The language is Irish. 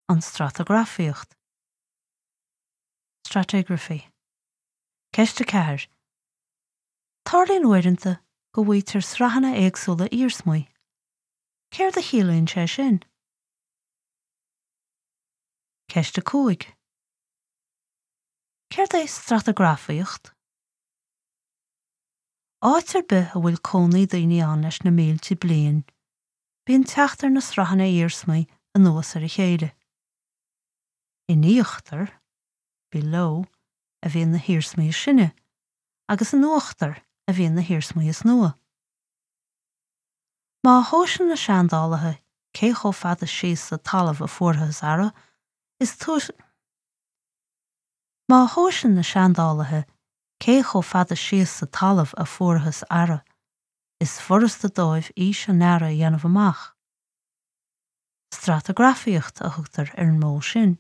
An stratagrafaíocht. Stratigraphy. Ceist 4. Tarlaíonn uaireanta go bhfaightear sraitheanna éagsúla iarsmaí. Céard a chiallaíonn sé sin? Ceist 5. Céard é stratagrafaíocht? Áit ar bith a bhfuil cónaí daoine ann leis na mílte bliain, bíonn teacht ar na sraitheanna iarsmaí anuas ar a chéile. In íochtar, below, a bhíonn na hiarsmaí is sine, agus in uachtar a bhíonn na hiarsmaí is nua. Má thomhaiseann na seandálaithe cé chomh fada síos sa talamh a fuarthas earra, is Má thomhaiseann na seandálaithe cé chomh fada síos sa talamh a fuarthas earra, is furasta dóibh aois an earra a dhéanamh amach. Stratagrafaíocht a thugtar ar an modh sin.